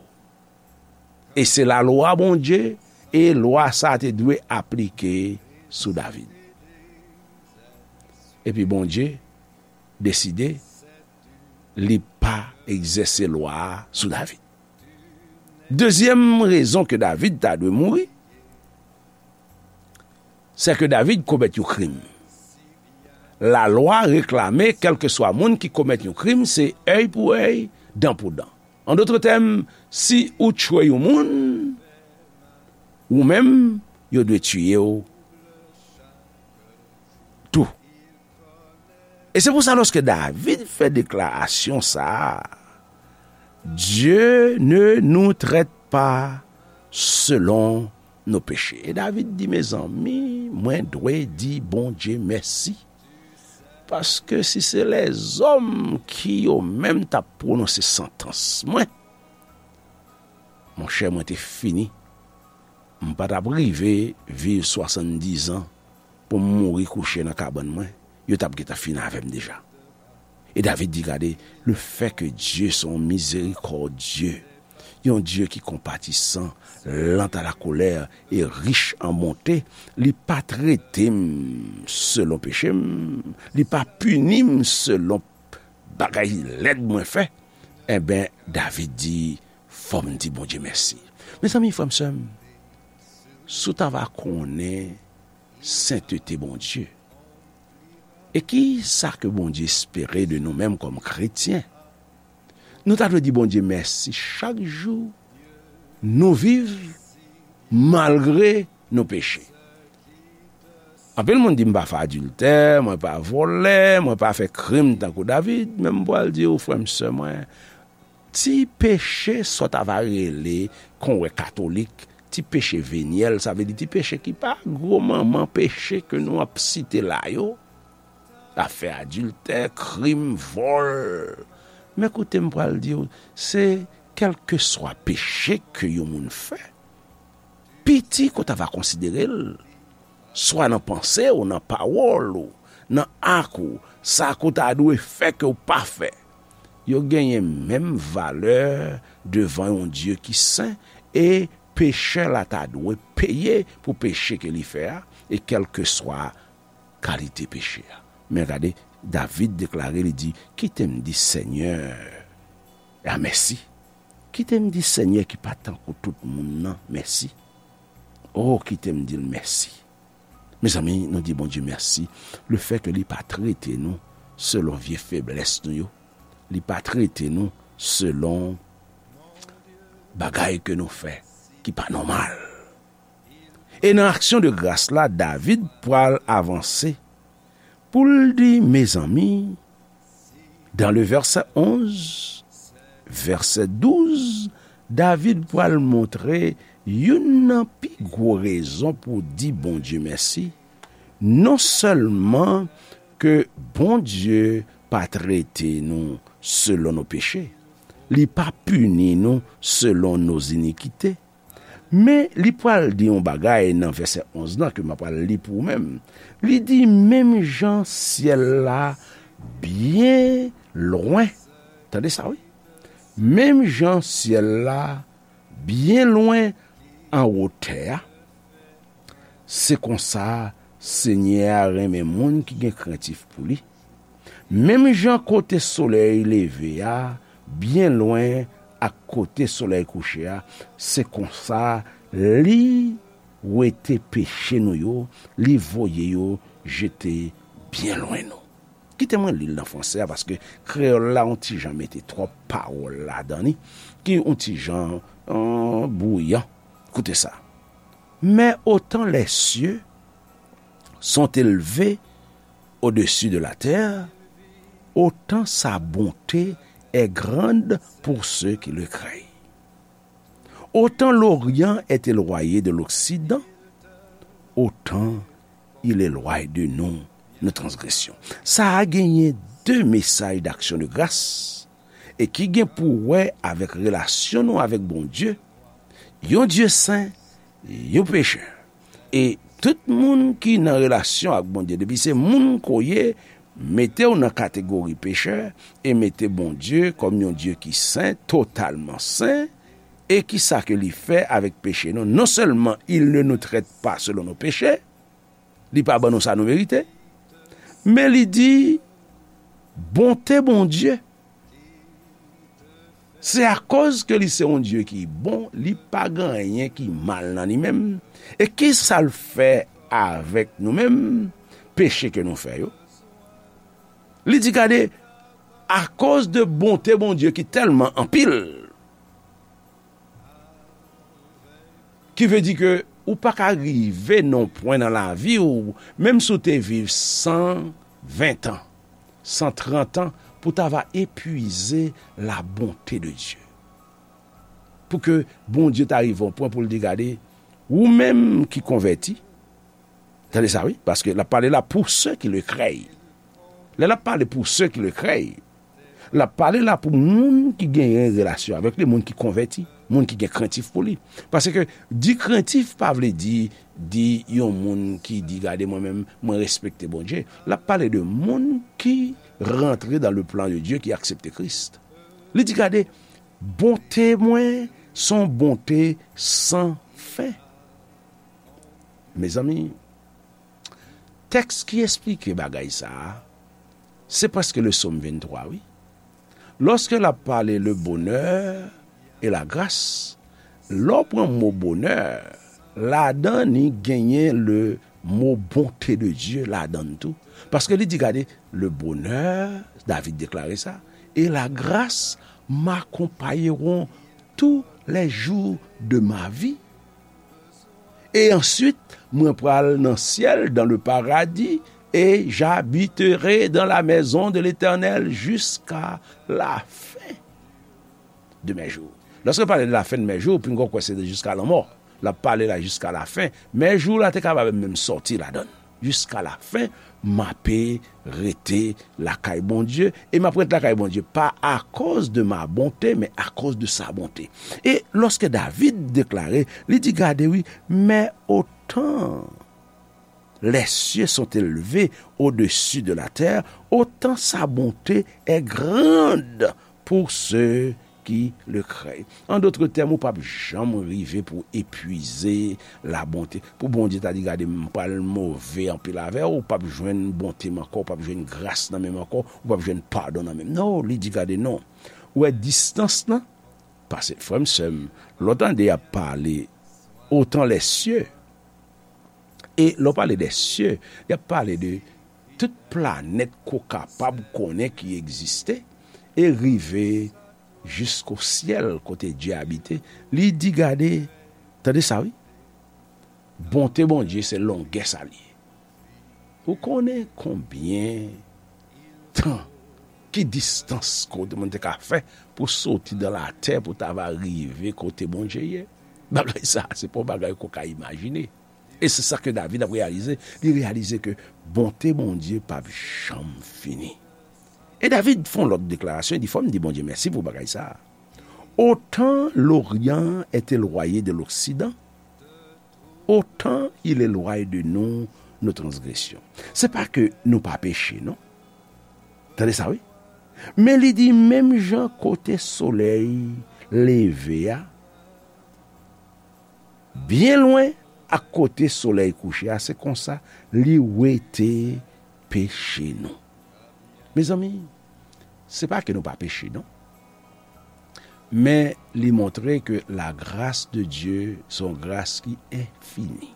E se lalwa Bondye, e lwa sa a te dwe aplike sou David. Epi Bondye deside li pa egzèse lwa a sou David. Dezyèm rezon ke David ta dwe mouri, se ke David komèt yon krim. Lalwa reklame, kèlkeswa moun ki komèt yon krim, se èy pou èy, dan pou dan. An dòt tèm, si ou tchwe yon moun, ou menm, yo dwe tiye w tou. E se pou sa, lòske David fè deklarasyon sa a, Dieu ne nous traite pas selon nos péchés. E David di, mezanmi, mwen dwe di Bondye mèsi. Paske si se lèzòm ki yo menm t ap pwononse santans mwen, monchè, mwen te fini. M pa t ap rive viv swasanndizan pou m mouri kouche nan kabann mwen. Yo t ap gentan fin avè m deja. E David di, gade, le fè ke Dye se yon mizerikòdye, yon Dye ki konpatisan, lent à la colère et riche en bonté, li pa trete m selon peche m, li pa pini m selon bagay lèd mwen fè. Enben, David di, fò m di Bondye mèsi. Mezanmi, frè m, sè m, si w ta va konnen sentete Bondye, e ki sa ke Bondye espere de nou menm kòm kretyen, nou ta dwe di Bondye mèsi chak jou nou viv malgre nou peche. Anpil moun di, m pa fè adiltè, mwen pa vòlè, mwen pa fè krim tankou David, men m pral di w, frè m, sè mwen, ti peche sa w ta va rele, kon wè katolik, ti peche venyèl, sa vle di ti peche ki pa gwo manman peche ke nou ap site la yo, afè adiltè, krim, vòl. Men koute, m pral di w, se kèlkeswa peche ke yon moun fè, piti ke w ta va konsidere l, swa nan panse w, nan pawòl ou, nan ak ou, sa ke w ta dwe fè ke w pa fè, yo genyen menm valè devan yon Dye ki sen, e pechè la ta dwe peye pou peche ke li fè a, e kèlkeswa kalite peche a. Men gade, David deklare, li di, kite m di Senyè a mèsi. Kite m di Senyè ki pa tankou tout moun nan mèsi. O, kite m di l mèsi. Mezanmi, nou di Bondye mèsi, le fè ke li pa trete nou selon vye feblès nou yo. Li pa trete nou selon bagay ke nou fè ki pa nòmal. E nan aksyon de gras la, David pral avanse pou l di, mezanmi, dans le verset onze, verset douze, David pral montre youn nan pi gwo rezon pou di Bondye mèsi. Non sèlman ke Bondye pa trete nou selon nos péchés, li pa pini nou selon nos iniquités, Men li pral di yon bagay nan vèsè onz lan ke m ap pral li pou ou menm. Li di, menm jan syèl la byen lwen. Tande sa, wi. Menm jan syèl la byen lwen anwo tè a, se konsa Senyè a renmen moun ki gen krentif pou li. Menm jan kote solèy leve a byen lwen ak kote solèy kouche a, se konsa li wete peche nou yo, li voye yo jete byen lwen nou. Kite mwen li l nan fransè a, paske kreyòl la yon ti jan mete twòp pawòl ladan li, ki yon ti jan, euh, bwouyan. Koute sa. Mais autant les cieux sont élevés au-dessus de la terre, autant sa bonté est grande pour ceux qui le craignent. Autant l'Orient est éloigné de l'Occident, autant il éloigne de nous nos transgressions. Sa a genyen de mesaj d'aksyon de gras e ki gen pou wè avèk relasyon nou avèk Bondye, yon Dye sen, yon pechè. E tout moun ki nan relasyon ak Bondye, depi se moun ke w ye, mete w nan kategori pechè e mete Bondye kòm yon Dye ki sen, totalman sen. E ki sa ke li fè avèk peche nou? Non sèlman il ne nous traite pas selon nos péchés, li pa ban nou sa nou merite, men li di, bonte Bondye, se akoz ke li se yon Dye ki bon, li pa gen anyen ki mal nan li menm. E ki sa l fè avèk nou menm, peche ke nou fè yo? Li di, gade, akoz de bonte Bondye ki tèlman anpil, ki vle di ke ou pa ka rive nan pwen nan lavi w, menm si w te viv san ven tan, san trant an, pou ta va epuize la bonte de Dye. Pou ke Bondye ta rive yon pwen pou l di, gade, ou menm ki konvèti, tande sa, wi, paske l ap pale la pour ceux qui le craignent. Lè l ap pale pour ceux qui le craignent, l ap pale la pou moun ki genyen relasyon avèk li, moun ki konvèti, moun ki gen krentif pou li. Paske di krentif pa vle di, di yon moun ki di, gade, mwen menm, mwen respekte Bondye. L ap pale de moun ki rantre dans le plan de Dieu, ki aksepte Kris. Li di, gade, bonte mwen se yon bonte san fen. Mezanmi, tèks ki esplike bagay sa a, se prèske le Sòm venntwa, wi. Lòske l ap pale le bonheur et la grâce, lè w pran mo bonè, ladan li genyen le mo bonte de Dye ladan l tou. Paske li di, gade, le bonheur, David deklare sa, et la grâce m'accompagneront tous les jours de ma vie. Et ensuite, mwen pral nan syèl, dans le paradis, et j'habiterai dans la maison de l'Éternel jusqu'à la fin de mes jours. Lòske pale de la fin de mes jours, pinga w kwè se jiska lanmò. L ap pale la jiska la fen. Men jou la te kapab menm sòti ladan l. Jiska la fen, m ape rete lakay Bondye, e m ap ret lakay Bondye pa akoz de ma bonte, men akoz de sa bonte. E lòske David deklare, li di, gade wi, men otan les cieux sont élevés au-dessus de la terre, autant sa bonté est grande pour ceux qui le craignent. An dòt tèm, ou p ap janm rive pou epuize la bonte. Pou Bondye ta di, gade, m pral move anpil avè w, ou p ap jwenn bonte m ankò, ou p ap jwenn gras nan men m ankò, ou p ap jwenn padon nan men m. Non, li di, gade, non. Ou wè distans lan? Pase, frè m, sè m, lè w tande y ap pale otan lè sye, e lè w pale dè sye, y ap pale de tout planèt ke w kapab konnen ki egziste, e rive jisko syèl kote Dye abite. Li di, gade, tande sa, wi. Bonte Bondye se longè sa l ye. Ou konnen konbyen tan, ki distans kote moun te ka fè pou soti dan latè pou ta va rive kote Bondye ye? Bagay sa, se pa yon bagay ke w ka imajine. E se sa ke David ap reyalize. Li reyalize ke bonte Bondye p ap janm fini. E David fè yon lòt deklarasyon, li di, fò m di Bondye mèsi pou bagay sa a. Autant l'Orient est éloigné de l'Occident, autant il éloigne de nous nos transgressions. Se pa ke nou pa peche, non. Tande sa, wi. Men li di, menm jan kote solèy leve a, byen lwen ak kote solèy kouche a, se konsa li wete peche nou. Mezanmi, se pa ke nou pa peche, non. Men li montre ke la grâce de Dieu se yon gras ki enfini.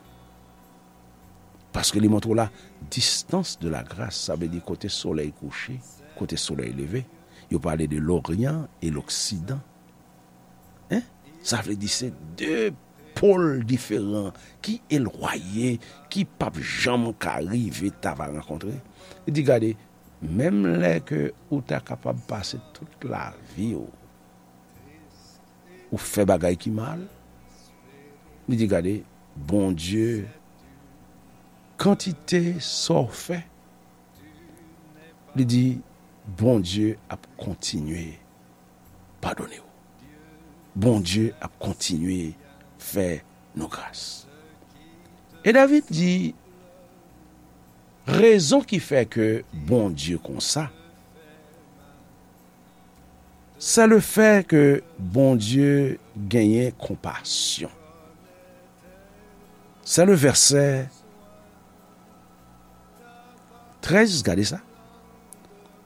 Paske li montre w la distance de la grâce, sa vle di kote solèy kouche, kote solèy leve. Yo pale de l'Orient et l'Occident. Hein? Sa vle di se de pòl diferan ki elwaye, ki p ap janm ka rive ta va rankontre. Li di, gade, menm lè ke ou ta kapab pase tout lavi w, ou fè bagay ki mal, li di, gade, Bondye, kantite sa w fè, li di, Bondye ap kontinye padone w. Bondye ap kontinye fè nou gras. E David di, rezon ki fè ke Bondye konsa, se le fè ke Bondye genyen konpasyon. Se le vèsè trèz, gade sa.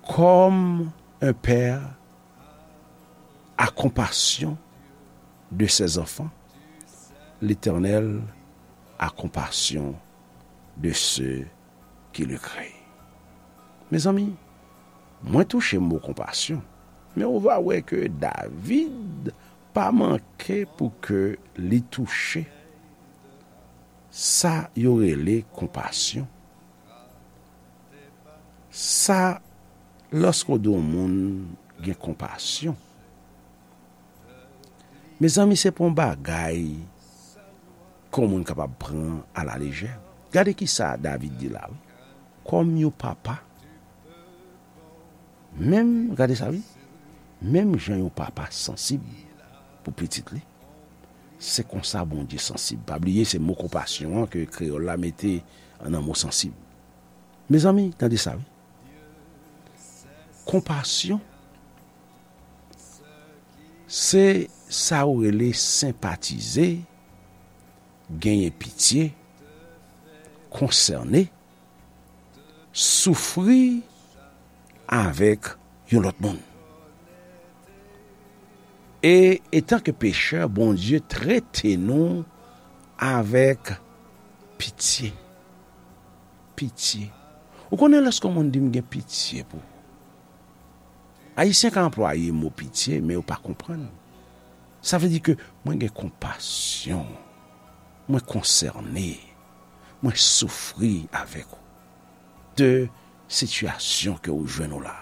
Comme un père a compassion de ses enfants, l'Éternel a compassion de ceux qui le craignent. Mezanmi, mwen touche mo konpasyon, men ou va wè ke David pa manke pou ke li touche sa yo rele konpasyon. Sa, lòske w di yon moun gen konpasyon, mezanmi, se pa yon bagay ke yon moun kapab pran alalejè. Gade ki sa David di la, wi. Kòm yon papa, menm, gade sa, wi, menm jan yon papa sansib pou pitit li, se konsa Bondye sansib. Pa bliye, se mo konpasyon an ke kreyòl la mete nan mo sansib. Mezanmi, tande sa, wi. Konpasyon, se sa ou rele senpatize, genyen pitye, konsène, soufri avèk yon lòt moun. E, etanke pechè, Bondye trete nou avèk pitye. Pitye. Ou konnen lòske yon moun di, "M gen pitye pou ou." Ayisyen ka anplwaye mo pitye, men yo pa konprann. Sa vle di ke mwen gen konpasyon, mwen konsène, mwen soufri avèk ou de sitiyasyon ke ou jwenn ou la.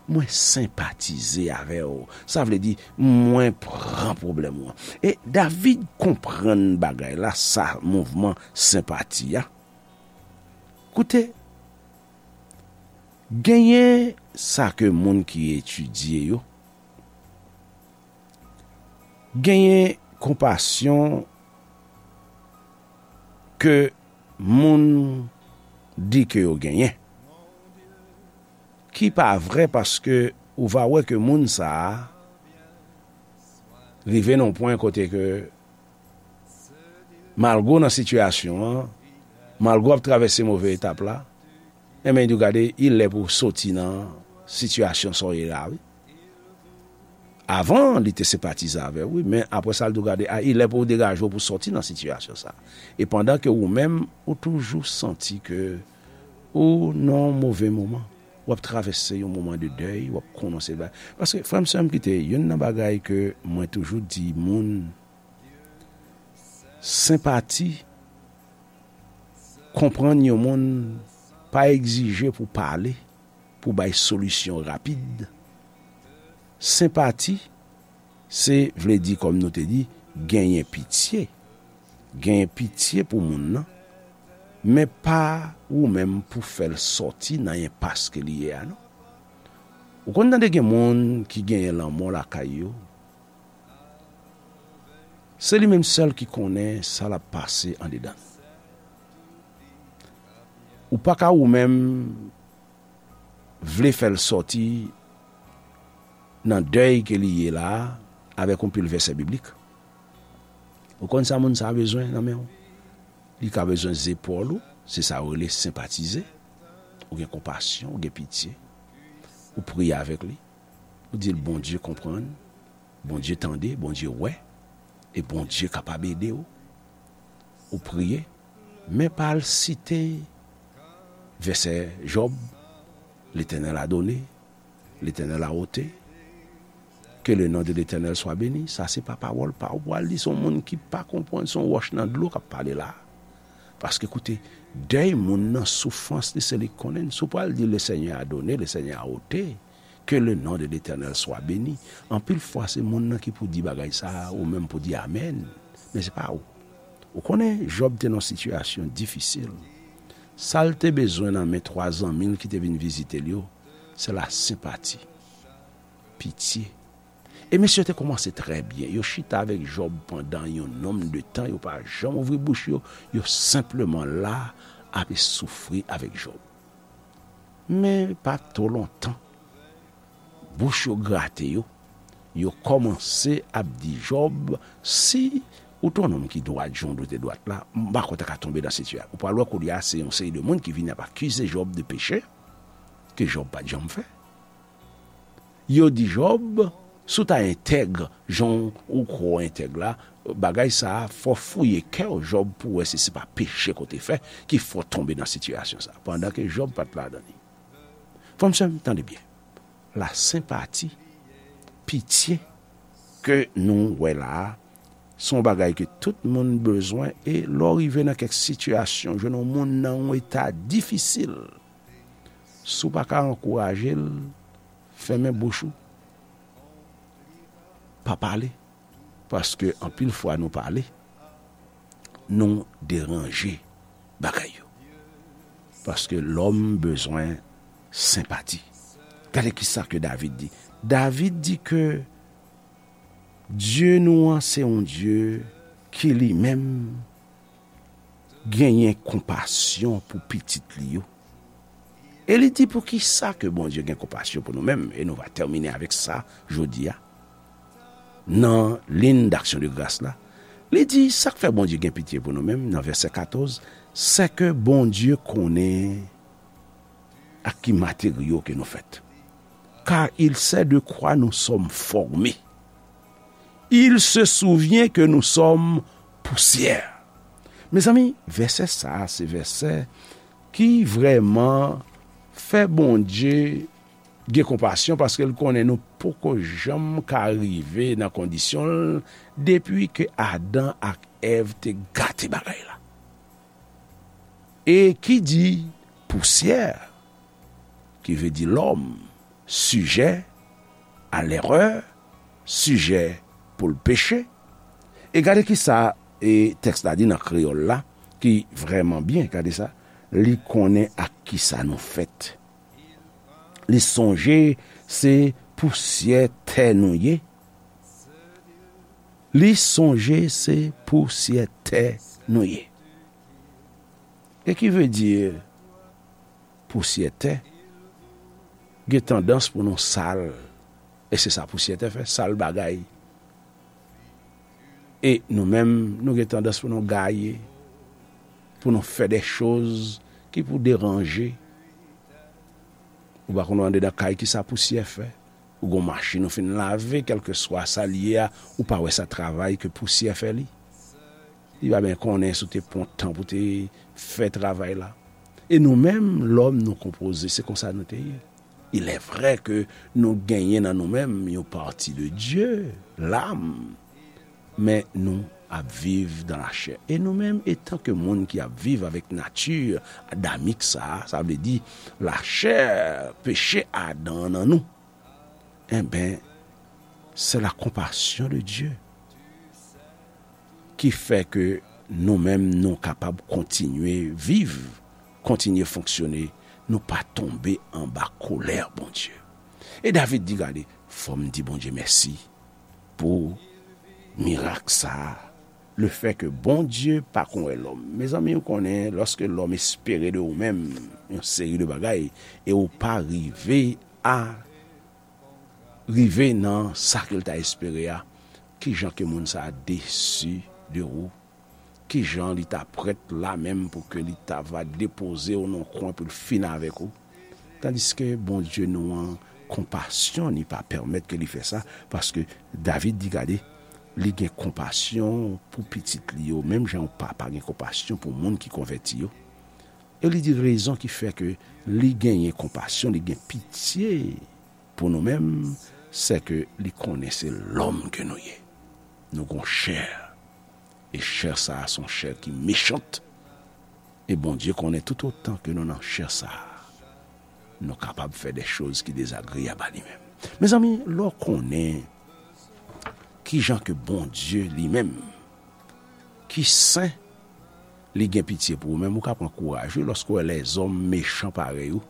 Mwen senpatize avè w. Sa vle di, mwen pran pwoblèm ou an. E David konprann bagay la, sa mouvman senpati a. Koute, genyen sa ke moun ki etidye yo, genyen konpasyon ke moun di ke yo genyen, ki pa vrè, paske ou va wè ke moun sa a rive nan yon pwen kote ke malgre w nan sitiyasyon an, malgre w ap travèse move etap la, enben, li di w, gade, il lè pou w soti nan sitiyasyon sa w ye la, wi. Avan, li te senpatize avè w, wi, men apre sa, li di w, gade, a, il lè pou w degaje w pou w soti nan sitiyasyon sa. E pandan ke ou menm, ou toujou santi ke ou nan yon move moman, w ap travèse yon moman de dèy, w ap konnen se bagay. Paske, frè m, sè m, kite, youn nan bagay ke mwen toujou di moun, senpati, konprann yon moun pa egzije pou pale, pou bay solisyon rapid. Senpati, se vle di, kòm nou te di, genyen pitye. Genyen pitye pou moun nan, men pa ou menm pou fè l sòti nan enpas ke li ye a, non. Ou konn tande gen moun ki genyen lanmò lakay yo, se li menm sèl ki konnen sa l ap pase andedan l. Ou pa ka ou menm vle fè l sòti nan dèy ke li ye la a avèk yon pil vèsè biblik. Ou konn sa moun sa a bezwen nan men w? Li ka bezwen zepòl ou, se sa yo rele senpatize. Ou gen konpasyon, ou gen pitye. Ou priye avèk li. Ou di l, Bondye konprann, Bondye tande, Bondye wè, e Bondye kapab ede w. Ou priye, men pa al site vèsè Jòb, Letènèl a done, Letènèl a ote, ke le non de Letènèl swa beni. Sa se pa pawòl pa w. Ou pral di se yon moun ki pa konprann, se yon wòch nan dlo k ap pale la. Paske koute, dèy moun nan, soufrans li, se li k konnen l. Si w pral di le Senyè a done, le Senyè a ote, ke le non de Letènèl swa beni. Anpil fwa se moun nan ki pou di bagay sa a, ou menm pou di amèn. Men se pa ou. Ou konnen, Jòb te nan yon sitiyasyon difisil. Sa l te bezwen nan men twa zanmi l ki te vin vizite l yo, se la senpati, pitye. E mesye yo te kòmanse trè byen. Yo chita avèk Jòb pandan yon nonm de tan, yo pa janm ouvri bouch yo, yo senpleman la, ap soufri avèk Jòb. Men pa twò lontan, bouch yo grate yo, yo kòmanse ap di Jòb, si ou te yon nonm ki dwat, jan w te dwat la, m pa kwè w ta ka tonbe nan sitiyasyon. Ou pral wè kounye a, se yon seri de moun ki vini ap akize Jòb de peche ke Jòb pa t janm fè. Yo di Jòb, si w ta entèg, jan w kwè w entèg la, bagay sa a, fò w fouye kè w, Jòb, pou w wè si se pa peche ke w te fè ki fè w tonbe nan sitiyasyon sa a, pandan ke Jòb pa t ladan li. Frè m, sè m, tande byen. La senpati, pitye ke nou wè la a, se yon bagay ke tout moun bezwen, e lè w rive nan kèk sitiyasyon, jwenn yon moun nan yon eta difisil, si w pa ka ankouraje l, fèmen bouch ou, pa pale. Paske anpil fwa nou pale, nou deranje bagay yo. Paske lòm bezwen senpati. Gade kisa ke David di. David di ke Dye nou an se yon Dye ki li menm genyen konpasyon pou pitit li yo. E li di, poukisa ke Bondye gen konpasyon pou nou menm? E nou va tèmine avèk sa jodi a. Nan liy d'aksyon de gras la, li di, sa k fè Bondye gen pitye pou nou menm, nan vèsè katòz, sè ke Bondye konnen ak ki materyo ke nou fèt. Car il sait de quoi nous sommes formés. Il se souvient que nous sommes poussière. Mezanmi, vèsè sa a, se vèsè ki vrèman fè Bondye gen konpasyon, paske l konnen nou poko janm ka rive nan kondisyon l depi ke Adan ak Èv te gate bagay la. E ki di pousyè, ki vle di lòm, sijè a lèrè, sijè pou l peche. E gade kisa, e, tèks la di nan kreyòl la, ki vrèman byen, gade sa, li konnen ak kisa nou fèt. Li sonje se pousyè tè nou ye. Li sonje se pousyè tè nou ye. E ki vle di pousyè tè? Gen tandans pou nou sal, e se sa pousyè tè fè, sal bagay. E nou menm, nou gen tandans pou nou gaye, pou nou fè de choz ki pou deranje. Ou pa konn andedan kay kisa pousyè fè. Ou gon machin ou fin lave, kèlkeswa sa l ye a, ou pa wè sa travay ke pousyè fè li. Li pa byen konnen si w te pran tan pou te fè travay la. E nou menm, lòm, nou konpoze, se konsa nou te ye. Il est vrai ke nou genyen nan nou menm yon pati de Dye, lam, men nou ap viv dan lachè. E nou menm, etan ke moun ki ap viv avèk nati adamik sa a, sa vle di lachè, peche Adan an nan nou, enben, se la konpasyon de Dye ki fè ke nou menm nou kapab kontinye viv, kontinye fonksyone, nou pa tonbe anba kolè Bondye. E David di, gade, fò m di Bondye mèsi pou mirak sa a Le fè ke Bondye pa konn wè lòm. Mezanmi, ou konnen, lòske lòm espere de ou menm yon seri de bagay, e ou pa rive a rive nan sa ke l ta espere a, kijan ke moun sa a desi de ou? Kijan li ta prèt la menm pou ke li ta va depoze w nan kwen pou l fini avèk ou? Tandiske Bondye nou an, konpasyon ni pa pèmèt ke li fè sa, paske David di, gade, li gen konpasyon pou pitit li yo, menm jan yon papa gen konpasyon pou moun ki konvèti yo. E li di rezon ki fè ke li genyen konpasyon, li gen pitye pou nou menm, se ke li konnen se lòm ke nou ye. Nou gon chè. E chè sa a se yon chè ki mechant. E Bondye konnen tout otan ke nou nan chè sa a, nou kapab fè de choz ki dezagreyab a li menm. Mezanmi, lè w konnen kijan ke Bondye li menm, ki sen, li gen pitye pou ou menm, ou ka pran kouraj, wi, lòske w wè lèzòm mechan parèy ou,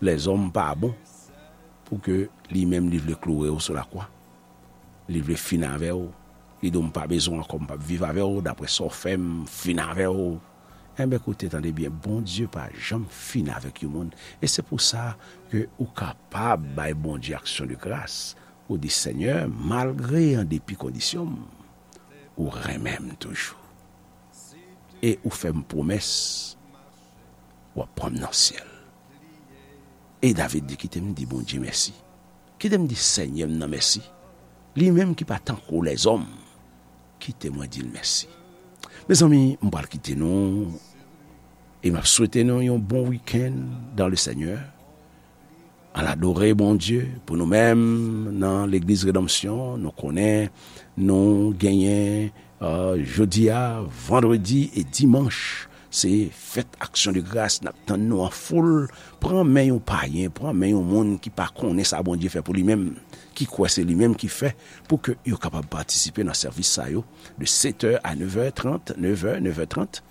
lèzòm pa bon, pou ke li menm li vle kloure w sou lakwa. Li vle fin avè w. Li di w, "M pa bezwen w ankò, m p ap viv avè w, daprè sa w fè m, m fin avè w." Enben, koute, tande byen, Bondye pa janm fin avèk yon moun. E se pou sa ke ou kapab bay Bondye aksyon de gras. Ou di, "Senyè, malgre an depi kondisyon m, ou renmen m toujou. E ou fè m pwomès, w ap pran m nan syèl." E David di, "Kite m di Bondye mèsi. Kite m di Senyè m nan mèsi. Li menm ki pa tankou lèzòm. Kite mwen di l mèsi." Mezanmi, m pral kite nou. E m ap swete nou yon bon wikenn dans le Seigneur. Ann adore Bondye pou nou menm nan Legliz Redanmsyon. Nou konnen nou genyen, euh, jodi a, vandredi e dimanch, se fèt aksyon de gras, n ap tann nou an foul. Pran men yon payen, pran men yon moun ki pa konnen sa Bondye fè pou li menm, ki kwè se li menm ki fè, pou ke yo kapab patisipe nan sèvis sa yo de sept heures à neuf heures trente, neuf heures, neuf heures trente.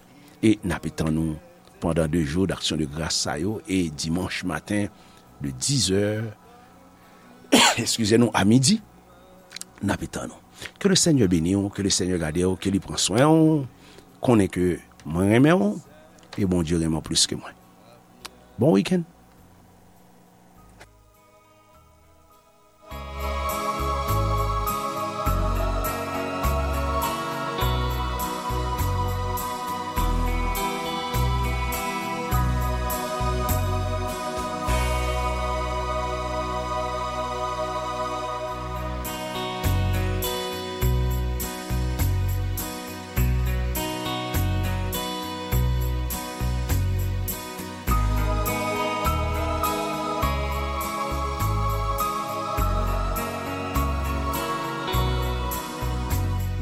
E n ape tann nou pandan de jou d'aksyon de gras sa yo, e dimanch maten de dix heures, eskize nou, a midi, n ape tann nou. Ke le Senyè beni w, ke le Senyè gade w, ke li pran swen w. Konnen ke mwen renmen w, e Bondye renmen w plis ke mwen. Bon wikenn.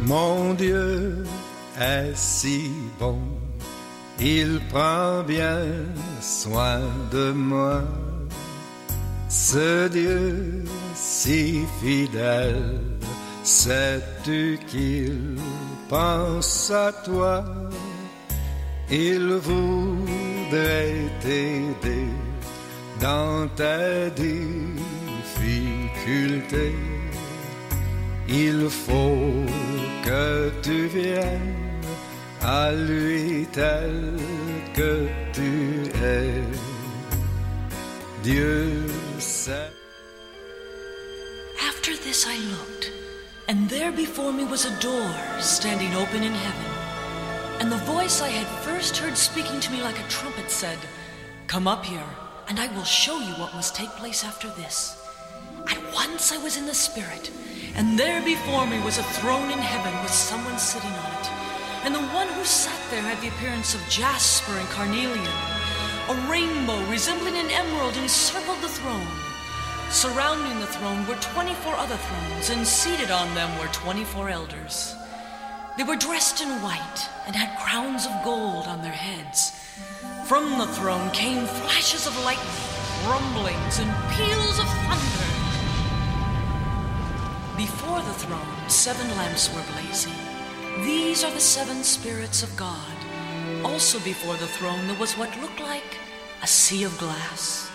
Mon Dieu est si bon, il prend bien soin de moi. Ce Dieu si fidèle, sais-tu qu'il pense à toi? Il voudrait t'aider dans tes difficultés. Il faut que tu viennes à lui tel que tu es. Dieu sait. After this I looked, and there before me was a door standing open in heaven. And the voice I had first heard speaking to me like a trumpet said, "Come up here, and I will show you what must take place after this." At once I was in the Spirit, and there before me was a throne in heaven with someone sitting on it. And the one who sat there had the appearance of jasper and carnelian. A rainbow resembling an emerald encircled the throne. Surrounding the throne were twenty-four other thrones, and seated on them were twenty-four elders. They were dressed in white and had crowns of gold on their heads. From the throne came flashes of lightning, rumblings, and peals of thunder. Before the throne, seven lamps were blazing. These are the seven spirits of God. Also before the throne, there was what looked like a sea of glass.